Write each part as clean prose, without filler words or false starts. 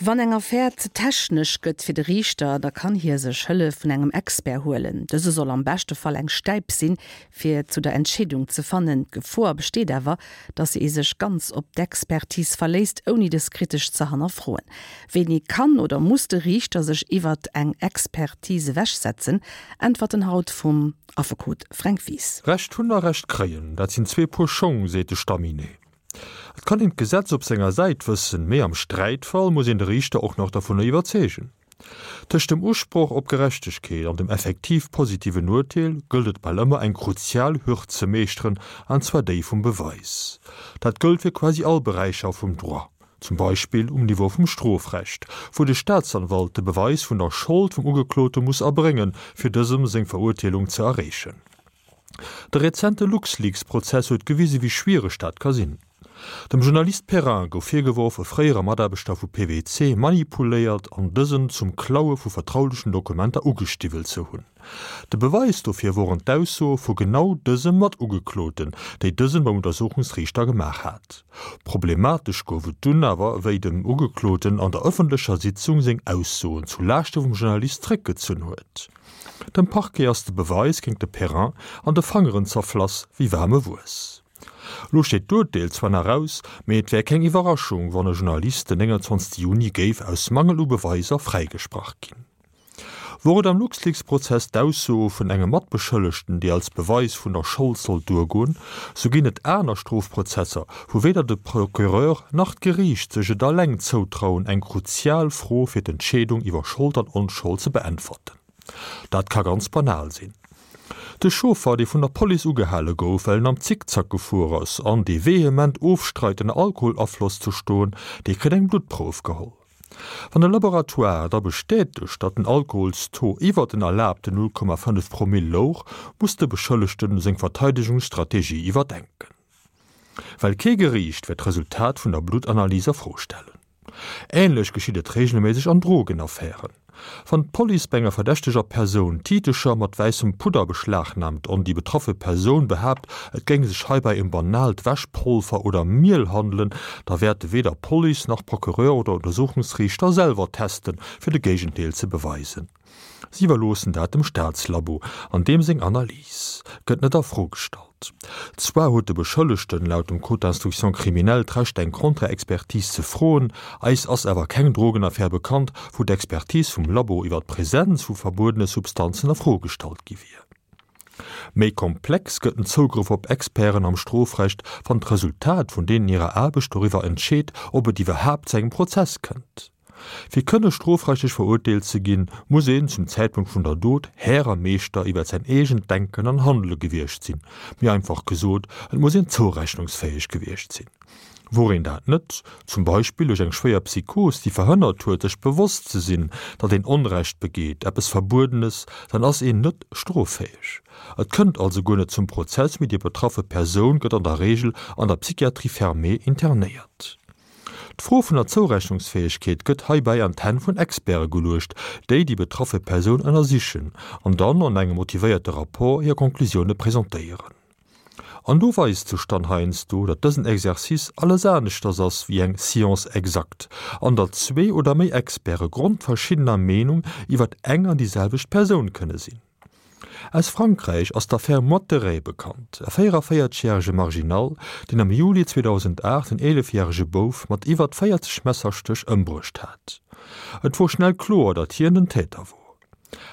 Wann eng Affär ze technesch gëtt fir de Riichter, da kann hie sech Hëllef vun engem Expert huelen. Dëse soll am beschte Fall eng Stäip sinn, fir zu der Entscheedung ze fannen. D'Gefor besteet awer, datt ee sech ganz op d'Expertise verléisst, ouni dës kritesch ze hannerfroen. Wéini kann oder muss de Riichter sech iwwert eng Expertise ewechsetzen? Äntwerten haut vum Affekot Fränk Wies. Recht hunn a Recht kréien, dat sinn zwee Puer Schong, seet de Stamminet. Et kann een d'Gesetz op senger Säit wëssen, mee am Sträitfall muss een de Riichter och nach dovunner iwwerzeegen. Tëscht dem Usproch op Gerechtegkeet an dem effektiv positiven Urteel gëllt et bal ëmmer eng kruzial Hürd ze meeschteren, an zwar déi vum Beweis. Dat gëllt fir quasi all Beräicher vum Droit, zum Beispill um Niveau vum Strofrecht, wou de Staatsanwalt de Beweis vun der Schold vum Ugeklote muss erbréngen, fir dësem seng Verurteelung ze erreechen. De rezente LuxLeaks-Prozess huet gewise wéi schwiereg dat ka sinn. Dem Journalist Perrin gouf virgeworf, e fréiere Mataarbechter vu PwC manipuléiert an dësen zum Klaue vu vertraulechen Dokumenter ugestiwwelt ze hunn. De Beweis dofir woren d'Aussoe vu genau dësem Matugekloten, déi dësen beim Untersuchungsriichter gemaach hat. Problematesch gouf et dunn awer, wéi dem Ugekloten an der ëffentlecher Sitzung seng Aussoen zu Laaschte vum Journalist zréckgezunn huet. Dem Parquet ass de Beweis géint de Perrin an de Fangeren zerflass wéi waarme Wuess. Lo steet d'Urteel zwar nach aus, mee et wär keng Iwwerraschung, wann e Journalist den 29 Juni géif aus Mangel u Beweiser fräigesprach ginn. Wor et am LuxLeaks-Prozess d'Ausso vun engem Matbeschëllegten, déi als Beweis vun der Schold sollt duergoen, sou ginn et aner Strofprozesser, wou weder de Procureur nach d'Geriicht sech et alleng zoutrauen, eng kruzial Fro fir d'Entscheedung iwwer Schold an Onschold ze beäntwerten. Dat ka ganz banal sinn. De Chauffer, dee vun der Police ugehale gouf, well en am Zickzack gefuer ass an dee vehement ofstreit ënner Alkoholafloss ze stoen, dee kritt eng Bluttprouf geholl. Wann de Laboratoire da bestätegt, datt den Alkoholstaux iwwer den erlaabten 0,5 Promill louch, muss de Beschëllegten seng Verteidegungsstrategie iwwerdenken. Well kee Geriicht wäert d'Resultat vun der Bluttanalys a Fro stellen. Änlech geschitt et reegelméisseg an Drogenaffären. Wann d'Police bei enger verdächteger Persoun Tiitecher mat wäissem Pudder beschlagnaamt an déi betraffe Persoun behaapt, et géing sech heibäi ëm banaalt Wäschpolver oder Miel handelen, da wäerte weder Police nach Procureur oder Untersuchungsriichter selwer testen, fir de Géigendeel ze beweisen. Si iwwerloossen dat dem Staatslabo, an deem seng Analys gëtt net a Fro gestallt. Zwar huet de Beschëllegten laut dem Code d'instruction criminelle d'Recht eng Contre-Expertise ze froen, eis ass awer keng Drogenaffär bekannt, wou d'Expertise vum Labo iwwer d'Presenz vu verbuedene Substanzen a Fro gestallt gi wier. Méi komplex gëtt den Zougrëff op Experten am Strofrecht, wann d'Resultat vun deenen hirer Aarbecht doriwwer entscheet, ob et iwwerhaapt zu engem Prozess kënnt. Fir kënne strofrechtlech verurteelt ze ginn, muss een zum Zäitpunkt vun der Dot Här a Meeschter iwwer säin eegent Denken an Handele gewiescht sinn, méi einfach gesot, et muss een zourechnungsfäeg gewiescht sinn. Wor een dat net, zum Beispill duerch eng schwéier Psychos, déi verhënnert huet, sech bewosst ze sinn, datt een Onrecht begeet, eppes Verbuedenes, dann ass een net stroffäeg. Et kënnt also guer net zum Prozess, mee déi betraffe Persoun gëtt an der Reegel an der Psychiatrie fermée internéiert. D'Fro vun der Zourechnungsfäegkeet gëtt heibäi an d'Hänn vun Experte geluecht, déi déi betraffe Persoun ënnersichen an dann an engem motivéierte Rapport hir Conclusioune presentéieren. An do weist sech dann heiansdo, datt dësen Exercice alles aneschters ass wéi eng Science exacte an datt zwee oder méi Experte grondverschiddener Meenung iwwer eng an déi selwecht Persoun kënne sinn. Aus Frankräich ass d'Affär Motteret bekannt, e 44 järege Marginal, deen am Juli 2008 en 11 järege Bouf mat iwwert 40 Messerstéch ëmbruecht hat. Et wor schnell kloer, datt hien den Täter wor.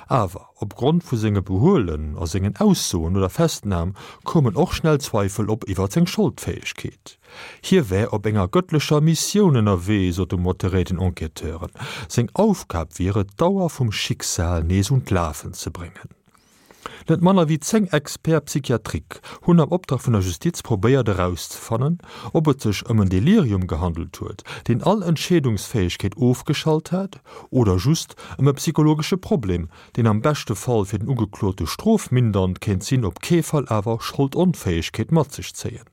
Awer opgrond vu senge Behuelen a sengen Aussoen no der Festnam koumen och schnell Zweifel op iwwer seng Scholdfäegkeet. Hie wär op enger gëttlecher Missioun ënnerwee, sot de Motteret den Enquêteuren. Seng Aufgab wier et, d'Auer vum Schicksal nees un d'Lafen ze bréngen. Net manner wéi 10 Experts psychiatriques hunn am Optrag vun der Justiz probéiert erauszefannen, ob et sech ëm en Delirium gehandelt huet, deen all Entscheedungsfäegkeet ofgeschalt hat, oder just ëm e psychologesche Problem, deen am beschte Fall fir den Ugeklote strofmindernd kéint sinn, op kee Fall awer Scholdonfäegkeet mat sech zéien.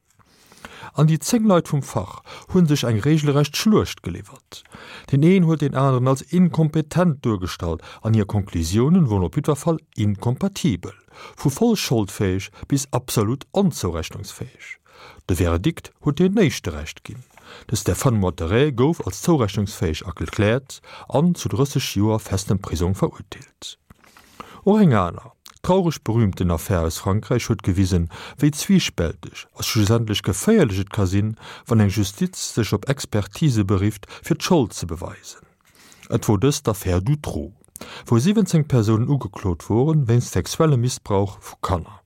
An déi 10 Leit vum Fach hu sech eng regelrecht Schluecht geliwwert. Deen een huet deen aneren als inkompetent duergestallt an hir Conclusiounen woren op jiddwer Fall inkompatibel, vu voll scholdfäeg bis absolut onzourechnungsfäeg. De Verdikt huet deen éischte Recht ginn. De Stéphane Moitteret gouf als zourechnungsfäeg erkläert an zu 30 Joer festem Prisong verurteelt. Och eng aner, traureg berühmten Affär aus Frankräich huet gewisen, wéi zwiispälteg a schlussendlech geféierlech et ka sinn, wann eng Justiz sech op Expertise berifft, fir d'Schold ze beweisen. Et wor dëst d'Affär Dutroux, wou 17 Persounen ugeklot woren, wéinst sexuellem Missbrauch vu Kanner.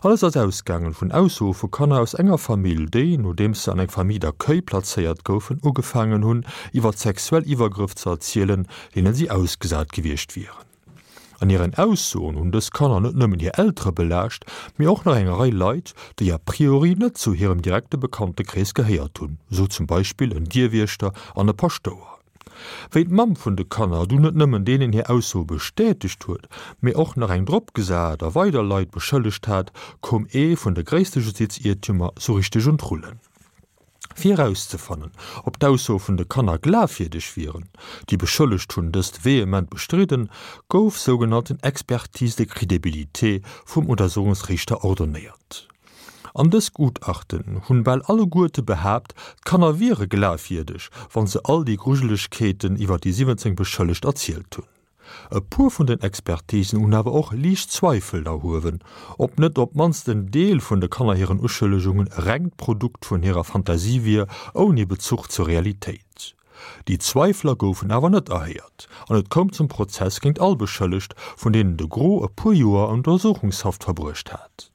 Alles ass ausgaangen vun Aussoe vu Kanner aus enger Famill, déi, nodeems se an eng Famille d'accueil plazéiert goufen, ugefaangen hunn, iwwer sexuell Iwwergrëff ze erzielen, deenen si ausgesat gewiescht wieren. An hiren Aussoen hunn dës Kanner net nëmmen hir Eltere belaascht, mee och nach eng Rei Leit, déi a priori net zu hirem direkte Bekanntekrees gehéiert hunn, sou zum Beispill en Dierwiechter an e Paschtouer. Wéi d'Mamm vun de Kanner dunn net nëmmen deenen hir Aussoe bestätegt huet, mee och nach eng drop gesat a weider Leit beschëllegt hat, koum ee vun de gréisste Justiziertümer sou richteg un d'Rullen. Fir erauszefannen, ob d'Aussoe vun de Kanner glafwierdeg wieren, déi Beschëllegt hunn dëst vehement bestridden, gouf sougenannten Expertise de crédibilité vum Untersuchungsriichter ordonnéiert. An dës Gutachten hunn bal alleguerte behaapt, d'Kanner wiere glafwierdeg, wann se all déi Grujelegkeeten iwwer déi 17 Beschëllegt erzielt hunn. E puer vun den Expertisen hunn awer och liicht Zweifel erhuewen, ob net op d'mannst en Deel vun de Kanner hiren Uschëllegungen e rengt Produkt vun hirer Fantasie wier, ouni Bezuch zur Realitéit. Déi Zweifler goufen awer net erhéiert an et koum zum Prozess géint all Beschëllegt, vun deenen de Gros e puer Joer an Untersuchungshaft verbruecht hat.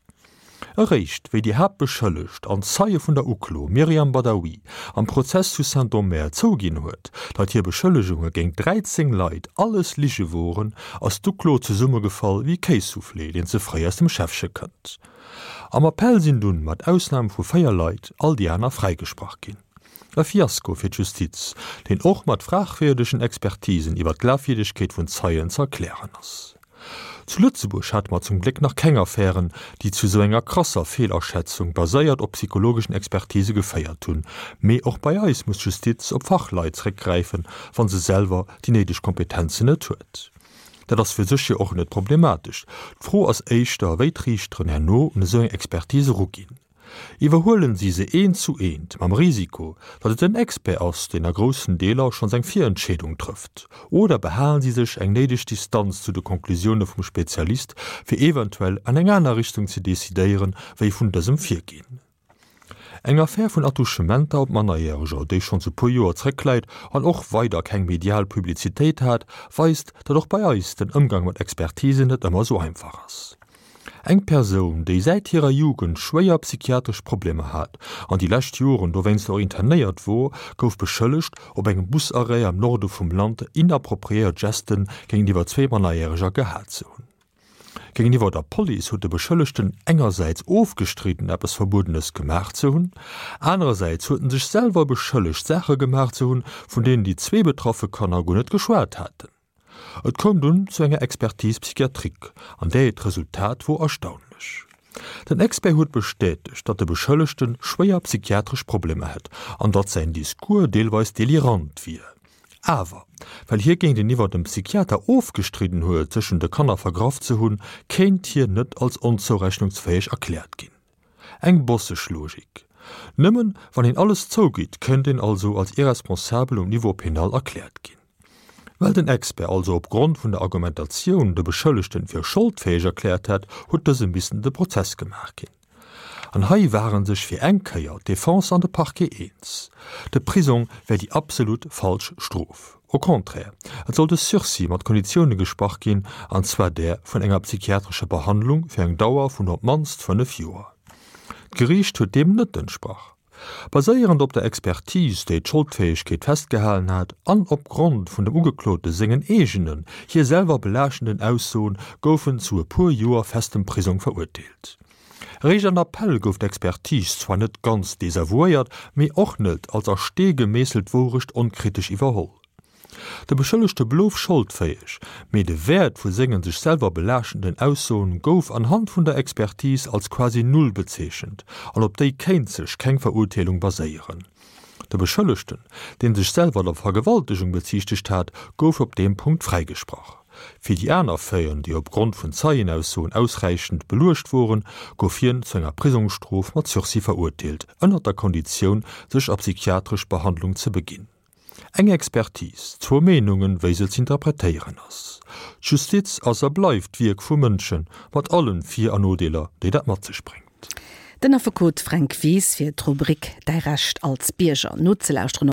Eréischt wéi déi Haaptbeschëllegt an Zeie vun der Uklo Myriam Badawi am Prozess zu Saint-Omer zouginn huet, datt hir Beschëllegunge géint 13 Leit alles Lige woren, ass d'Uklo zesummegefall wéi Kéissoufflé, deen ze fréi aus dem Schäffche kënnt. Am Appell sinn dunn, mat Ausnam vu 4 Leit, all déi aner fräigesprach ginn. E Fiasko fir d'Justiz, deen och mat fragwierdegen Expertisen iwwer d'Glafwierdegkeet vun Zeien ze erklären ass. Zu Lëtzebuerg hate mer zum Gléck nach keng Affären, déi zu esou enger krasser Feelaschätzung, baséiert op psychologeschen Expertise geféiert hunn. Mee och bei eis muss d'Justiz op Fachleit zréckgräifen, wa se selwer déi néideg Kompetenzen net huet. Dat ass fir sech jo och net problematesch. D'Fro ass éischter, wéi d'Riichteren herno un esou eng Expertise eruginn. Iwwerhuelen si se eent zu eent, mam Risiko, datt et den Expert ass, deen a groussen Deeler schonns eng Virentscheedung trëfft? Oder behalen si sech eng néideg Distanz zu de Konklusioune vum Spezialist, fir eventuell an eng aner Richtung ze decidéieren, wéi vun dësem virginn? Eng Affär vun Attouchementer op Mannerjäreger, déi schonns e puer Joer zréckläit an och weider keng medial Publizitéit hat, weist, datt och bei eis den Ëmgang mat Expertisen net ëmmer esou einfach ass. Eng Persoun, déi säit hirer Jugend schwéier psychiatresch Problemer hat an déi lescht Joren dowéinst och internéiert wor, gouf beschëllegt, op engem Busarrêt am Norde vum Land inappropriéiert Gesten géintiwwer zwee Mannerjäreger gehat ze hunn. Géintiwwer der Police huet de Beschëllegten engersäits ofgestridden, eppes Verbuedenes gemaach ze hunn, anerersäits huet en sech selwer beschëllegt, Saache gemaach ze hunn, vun deenen déi zwee betraffe Kanner guer net geschwat haten. Et koum dunn zu enger Expertise psychiatrique, an där hiert Resultat wor erstaunlech. Den Expert huet bestätegt, datt de Beschëllegte schwéier psychiatresch Problemer hätt an datt säin Discours deelweis delirant wier. Awer, well hie géinteniwwer dem Psychiater ofgestridden huet, sech un de Kanner vergraff ze hunn, kéint hien net als onzourechnungsfäeg erkläert ginn. Eng bosseg Logik. Nëmmen wann een alles zougitt, kéint een also als irresponsabel um Niveau penal erkläert ginn. Well den Expert also op Grond vun der Argumentatioun de Beschëllegten fir scholdfäeg erkläert hat, huet dësem missen de Prozess gemaach ginn. An hei ware sech fir eng Kéier d'Defense an de Parquet eens, de Prisong wär déi absolut falsch Strof. Au contraire, et sollt e Sursis mat Konditioune gesprach ginn, an zwar där vun enger psychiatrescher Behandlung fir eng Dauer vun op d'mannst 5 Joer. D'Geriicht huet deem net entsprach. Baséierend op der Expertise, déi d'Scholdfäegkeet festgehalen hat, an op Grond vun dem Ugeklote sengen eegenen, hie selwer belaaschtenden Aussoen, gouf en zu e puer Joer festem Prisong verurteelt. Eréischt an Appell gouf d'Expertise zwar net ganz desavouéiert, mee och net als a Stee gemeesselt Wourecht onkritesch iwwerholl. De Beschëllegte blouf scholdfäeg, mee de Wäert vu sengen sech selwer belaaschtenden Aussoen gouf anhand vun der Expertise als quasi null bezeechent an op déi kéint sech keng Verurteelung baséieren. De Beschëllegten, dee sech selwer der Vergewaltegung beziichtegt hat, gouf op deem Punkt fräigesprach. Fir déi aner Faiten, déi opgrond vun Zeienaussoen ausräichend beluecht woren, gouf hien zu enger Prisongsstrof mat Sursis verurteelt, ënnert der Konditioun, sech a psychiatresch Behandlung ze beginn. Eng Expertise, zwou Meenungen, wéi se z'interpretéieren ass. D'Justiz ass a bleift d'Wierk vu Mënschen, mat allen Vir an Nodeeler, déi dat mat sech bréngt. Den Affekot Fränk Wies fir d'Rubrik Däi Recht als Bierger nozelauschteren.